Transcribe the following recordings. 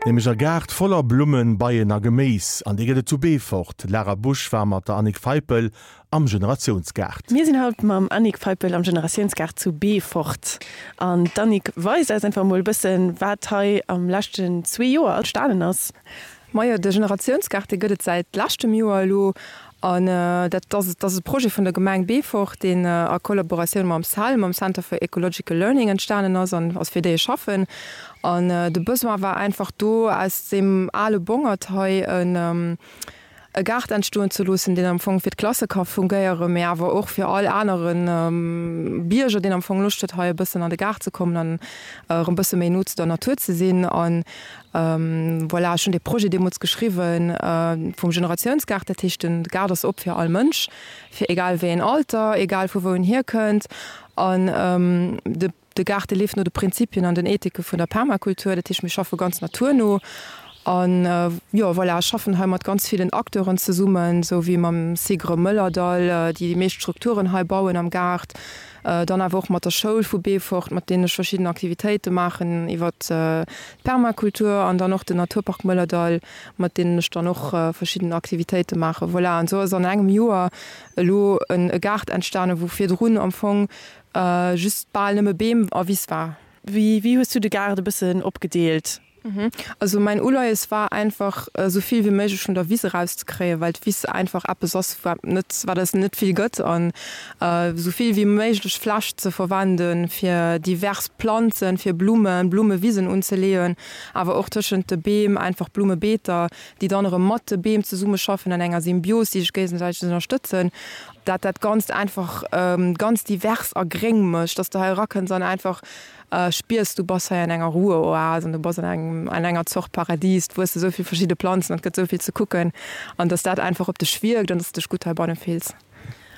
Nämlech e Gaart voller Blummen, Beien a Geméis. An dee gëtt et zu Beefort. D'Lara Busch war mat der Annick Feipel am Generatiounsgaart. Mir sinn haut mam Annick Feipel am Generatiounsgaart zu Beefort. An d'Annick weist eis einfach emol e bëssen, wat hei am leschten zwee Joer entstanen ass. Majo, de Generatiounsgaart, dee gëtt et säit leschtem Joer elo. An dat ass, dat ass e Projet vun der Gemeng Beefort, deen a Kollaboratioun mam cell, mam Center for Ecological Learning entstanen ass an ass, fir déi ech schaffen. An de Besoin war einfach do, aus deem ale Bongert hei en e Gaart entstoen ze loossen, deen am Fong fir d'Klasse ka fungéieren, mee awer och fir all anere Bierger, deen am Fong Loscht huet, hei e bëssen an de Gaart ze kommen an erëm e bësse méi no zu der Natur ze sinn. An Voilà, ech hunn dee Projet deemools geschriwwen vum Generatiounsgaart. Dat heescht, de Gaart ass op fir all Mënsch, fir egal wéi een Alter, egal vu wou en hierkënnt. An de Gaart, dee leeft no de Prinzipien an den Ethike vun der Permakultur. Dat heescht, mir schaffe ganz naturno. An jo, voilà, ech schaffen hei mat ganz villen Acteuren zesummen, esou wéi mam SIGRE Mëllerdall, déi déi meescht Strukturen hei bauen am Gaart. Dann awer och mat der Schoul vu Beefort, mat deenen ech verschidden Aktivitéite maachen iwwer d'Permakultur an dann och den Naturpark Mëllerdall, mat deenen ech dann och verschidden Aktivitéite maachen. Voilà, an esou ass an engem Joer elo e Gaart entstanen, wou virdrun am Fong just bal nëmme Beem a Wiss war. Wéi hues du de Gaart e bëssen opgedeelt? Also mäin Uleies war einfach esou vill wéi méiglech vun der Wiss erauszekréien, well d'Wiss einfach eppes ass wat net, wat eis net vill gëtt an esou vill wéi méiglech Fläch ze verwenden fir divers Planzen, fir Blummen, Blummewisen unzeleeën, awer och tëschent de Beem einfach Blummebeeter, déi dann erëm mat de Beem zesummeschaffen an enger Symbios, déi sech géigesäiteg ënnerstëtzen, dat dat Ganzt einfach ganz divers a gréng mécht, dass de hei erakënns an einfach Spiers, du bass hei an enger Ruheoase an du bass an engem, an enger Zort Paradies, et wuesse sou vill verschidde Planzen an et gëtt sou vill ze kucken an dass dat einfach op dech wierkt an dass du dech gutt heibanne fills.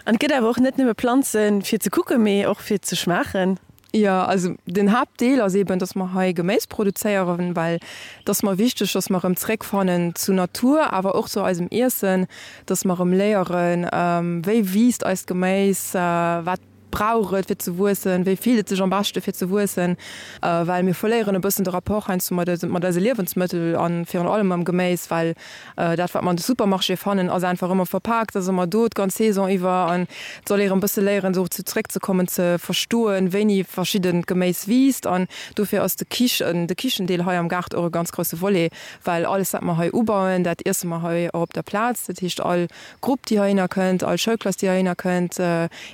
An et gëtt awer och net nëmme Planzen fir ze kucken, mee och fir ze schmaachen. Jo, also den Haaptdeel ass eben, dass mer hei Geméis produzéieren, well et ass mer wichteg, dass mer erëm zréckfannen zu Natur, awer och zu eisem Iessen, dass mer erëm léieren, wéi wiisst eist Geméis, wat brauch et fir ze wuessen, wéi fillt et sech am beschte fir ze wuessen, well mir verléieren e bëssen de Rapport heiansdo mat eise mat eise Liewensmëttel a virun allem mam Geméis, well dat wat mer an de Supermarchéë fannen ass einfach ëmmer verpaakt, ass ëmmer do d'ganz Saison iwwer an et soll ee erëm bësse léieren dozou zréckzekommen, ze verstoen, wéini verschiddent Geméis wiisst an dofir ass de Kichen de Kichendeel hei am Gaart och e ganz grousse Volet, well alles wat mer hei ubauen, dat iesse mer hei och op der Plaz, dat heescht all Grupp déi heihinner kënnt, all Schoulklass déi heihinner kënnt,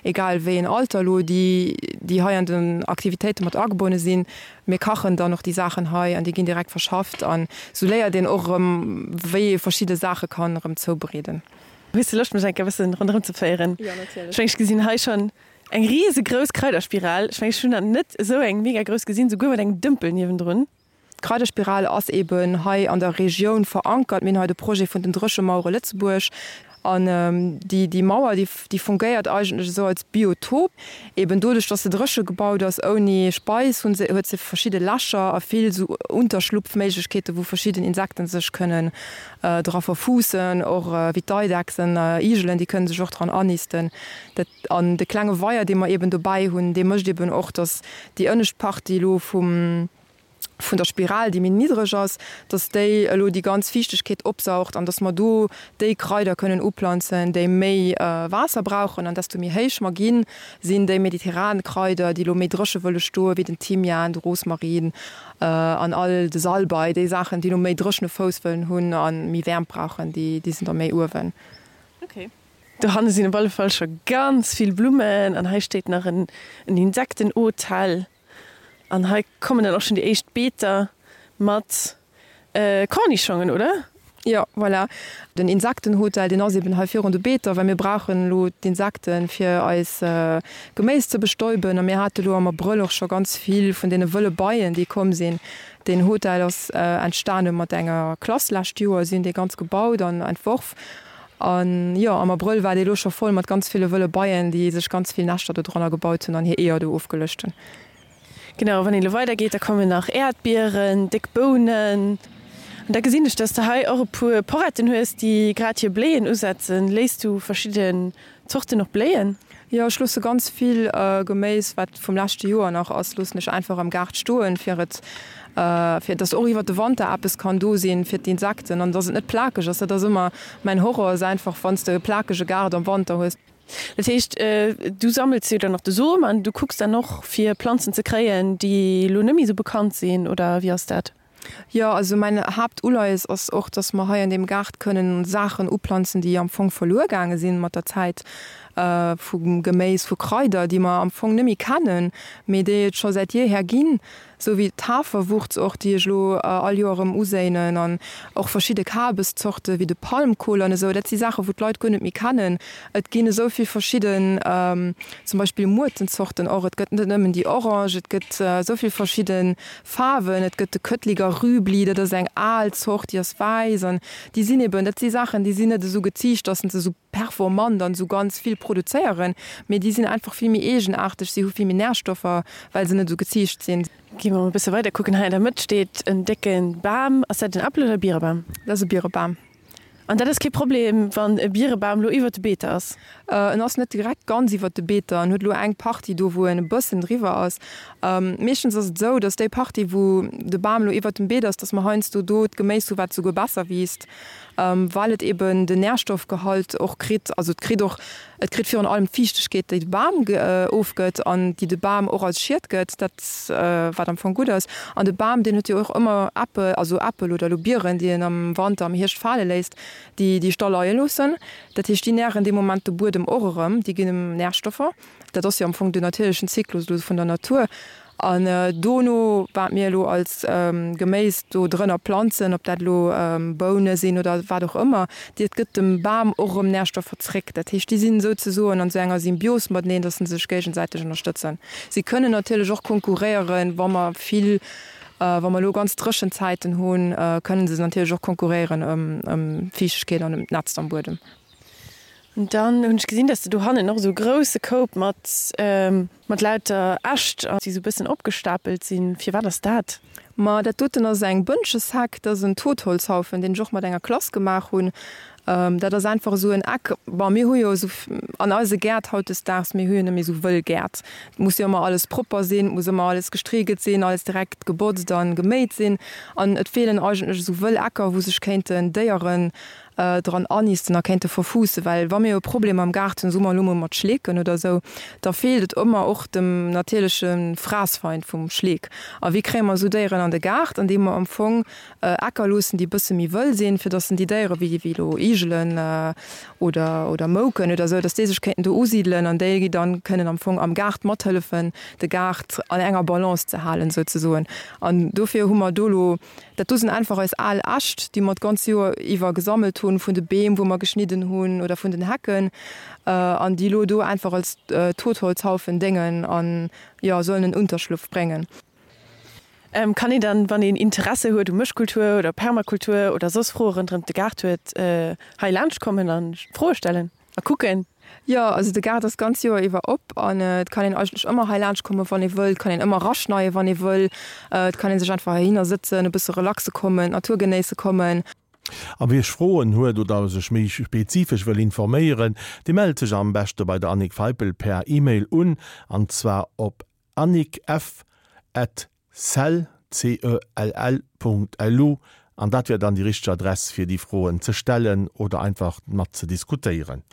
egal wéi een Alter elo, déi déi hei an den Aktivitéite mat agebonne sinn, mir kachen dann och déi Saachen hei an déi ginn direkt verschafft an esou léiert een och erëm wéi ee verschidde Saache kann erëm zoubereeden. Hues de Loscht mech eng Kéier e bëssen ronderëm ze féieren? Jo natierlech. Ech mengen ech gesinn hei schonn eng riesegrouss Kraiderspiral. Ech mengen ech hunn nach net esou eng mega grouss gesinn, souguer mat engem Dëmpel niewendrun. D'Kraiderspiral ass eben hei an der Regioun verankert. Mir hunn hei de Projet vun den Dréchemauere Lëtzebuerg. An déi, déi Mauer, déi, déi fungéiert eigentlech esou als Biotop. Eben doduerch, dass se dréche gebaut ass, ouni Speis, hunn se, huet se verschidde Lächer a vill esou Unterschlupfméiglechkeeten, wou verschidden Insekten sech kënnen dra verfuussen. Och wéi d'Eidechsen, Igelen, déi kënnen sech och dran annisten. Dat, an de klenge Weier, dee mer eben dobäi hunn, dee mécht eben och, dass déi ënnescht Partie elo vum, vun der Spiral, déi méi niddreg ass, dass déi elo déi ganz Fiichtegkeet opsaugt an dass mer do déi Kraider kënnen uplanzen, déi méi Waasser brauchen. An desto méi héich mer ginn, sinn déi mediterran Kraider, déi elo méi dréche wëlle stoen, wéi den Thymian, de Rosmarin an all de Salbei, déi Saachen, déi elo méi dréchene Fouss wëllen hunn a méi Wäermt brauchen, déi sinn da méi uewen. Okay. Dohanne sinn op alle Fall scho ganz vill Blummen an hei steet nach en Insektenhotel. An hei kommen dann och schon déi éischt Beeter mat Cornischongen, oder? Jo, voilà. Den Insektenhotel, deen ass eben hei virun de Beeter, well mir brauchen elo d'Insekten, fir eis Geméis ze bestäuben. A mir hate elo am Abrëll och scho ganz vill vun deene wëlle Beien, déi komm sinn. Deen Hotel ass entstane mat enger Klass lescht Joer. Si hunn dee ganz gebaut an entworf. An jo, am Abrëll war dee lo scho voll mat ganz ville wëlle Beien, déi sech ganz vill Näschter do dranner gebaut hunn an hir Eeër do ofgeluecht hunn. Genau, wann een elo weider geet, da kommen nach Äerdbieren, déck Bounen. An da gesinn ech, dass de hei och e puer Poretten hues, déi grad hir Bléien usetzen. Léiss du verschidden Zorten och bléien? Jo, ech loosse ganz vill Geméis, wat vum leschte Joer nach ass, loossen ech einfach am Gaart stoen, fir et. Fir dass och iwwert de Wanter eppes kann do sinn fir d'Insekten an dass et net plakeg ass. Dat ass ëmmer mäin Horror, ass einfach wann s de e plakege Gaart am Wanter hues. Dat heescht, du sammels jo dann och de Som an du kucks dann och fir Planzen ze kréien, déi elo net méi esou bekannt sinn, oder wéi ass dat? Jo, also mäin Haaptuleies ass och, dass mer hei an deem Gaart kënnen Saachen uplanzen, déi am Fong verluer gaange sinn mat der Zäit, vu Geméis, vu Kraider, déi mer am Fong net méi kennen, mee déi et scho säit jeeher ginn. Sou wéi d'Haferwurz och, déi ech elo all Joer erëm uséinen, an och verschidde Kabeszorte wéi de Palmkohl an esou. Dat si Saachen, wou d'Leit guer net méi kennen. Et ginn esou vill verschidden, zum Beispill Muertenzorten och. Et gëtt net nëmmen déi orange, et gëtt esou vill verschidde Faarwen. Et gëtt de Köttliger Rübli, dat ass eng al Zort, déi ass wäiss. An déi sinn eben, dat si Saachen, déi sinn net esou geziicht, dass se esou performant an esou ganz vill produzéieren, mee déi sinn einfach vill méi eegenaarteg, si hu vill méi Närstoffer, well se net esou geziicht sinn. Gi mer mol e bësse weider kucken. Hei an der Mëtt steet en décke Bam. Ass dat en Äppel oder e Bierebam? Dat ass e Bierebam. An dat ass kee Problem, wann e Bierebam lo iwwert de Beeter ass? En ass net direkt ganz iwwert de Beeter. En huet elo eng Partie do, wou en e bëssen driwwer ass. Meeschtens ass et esou, datt déi Partie, wou de Bam elo iwwert dem Beet ass, datt mer heiansdo do d'Geméis hu wat souguer besser wiisst. well et eben den Nährstoffgehalt och kritt, also et kritt och, et kritt virun allem d'Fiichtegkeet, déi de Bam ofgëtt an déi de Bam och als Schied gëtt, dat wat am Fong gutt ass. An de Bam, deen huet jo och ëmmer Äppel, also Äppel oder elo Bieren, déi en am Wanter, am Hierscht fale léisst, déi déi ech da leie loossen. Dat heescht, déi nähren dee Moment de Buedem och erëm, déi ginn em Nährstoffer. Dat ass jo am Fong den natierlechen Zyklus elo vun der Natur. An dono, wat mir elo als Geméis do drënner planzen, ob dat elo Boune sinn oder wat och ëmmer, dat gëtt dem Bam och erëm Närstoffer zréck. Dat heescht, déi sinn souzesoen an esou enger Symbios mateneen, datt se sech géigesäiteg ënnerstëtzen. Si kënnen natierlech och konkurréieren, wa mer vill, wa mer elo ganz dréchen Zäiten hunn, kënnen se natierlech och konkurréieren ëm d'Fiichtegkeet an ëm d'Nätzt am Buedem. An dann hunn ech gesinn, dass de do hannen och esou e grousse Koup mat, mat lauter Äscht, déi esou e bëssen opgestapelt sinn. Firwat ass dat? Ma dat doten ass eng Bënschesheck, dat ass en Totholzhaufen, deen ech och mat enger Klass gemaach hunn. Dat ass einfach esou en Eck. Bon, mir hu jo esou an eise Gäert hautdesdaags, mir hu jo net méi esou wëll Gäert. Et muss jo ëmmer alles propper sinn, et muss ëmmer alles gestrigelt sinn, alles direkt gebotzt a geméit sinn. An et feelen eigentlech esou wëll Ecker, wou sech kéinten Déieren dran anisten a kéinte verfuussen, well wa mir e Problem am Gaart hunn, soe mer elo mol mat Schleeken oder esou, da feelt et ëmmer och dem natierleche Fraassfeind vum Schleek. A wéi kréie mer esou Déieren an de Gaart? Andeem mer am Fong Äcker loossen, déi e bësse méi wëll sinn, fir datt déi Déiere wéi elo Igelen oder oder Mouken oder esou, datt déi sech kéinten do usidelen an déi dann kënnen am Fong am Gaart mathëllefen, de Gaart an enger Balance ze halen souzesoen. An dofir hu mer do elo Dat do sinn einfach eis al Äscht, déi mer d'ganz Joer iwwer gesammelt hunn, vun de Beem, wou mer geschnidden hunn, oder vun den Hecken, an déi elo do einfach als Totholzhaufen déngen an, jo, sollen en Unterschlupf bréngen. Kann een dann, wann een Interesse huet u Mëschkultur oder Permakultur oder soss Froe ronderëm de Gaart huet, hei laanscht kommen a Froe stellen? A kucken. Jo, also de Gaart ass d'ganz Joer iwwer op an et kann een eigentlech ëmmer hei laanscht kommen, wann ee wëll. Et kann een ëmmer raschneien, wann ee wëll. Et kann ee sech einfach heihinner sëtzen, e bësse relaxe kommen, d'Natur genéisse kommen. A wie Froen huet oder sech méi spezifesch wëll informéieren, dee mellt sech am beschte bei der Annick Feipel per E-Mail un, an zwar op annickf at cell, C-E-L-L, Punkt lu an dat wär dann déi richteg Adress fir déi Froen ze stellen oder einfach mat ze diskutéieren.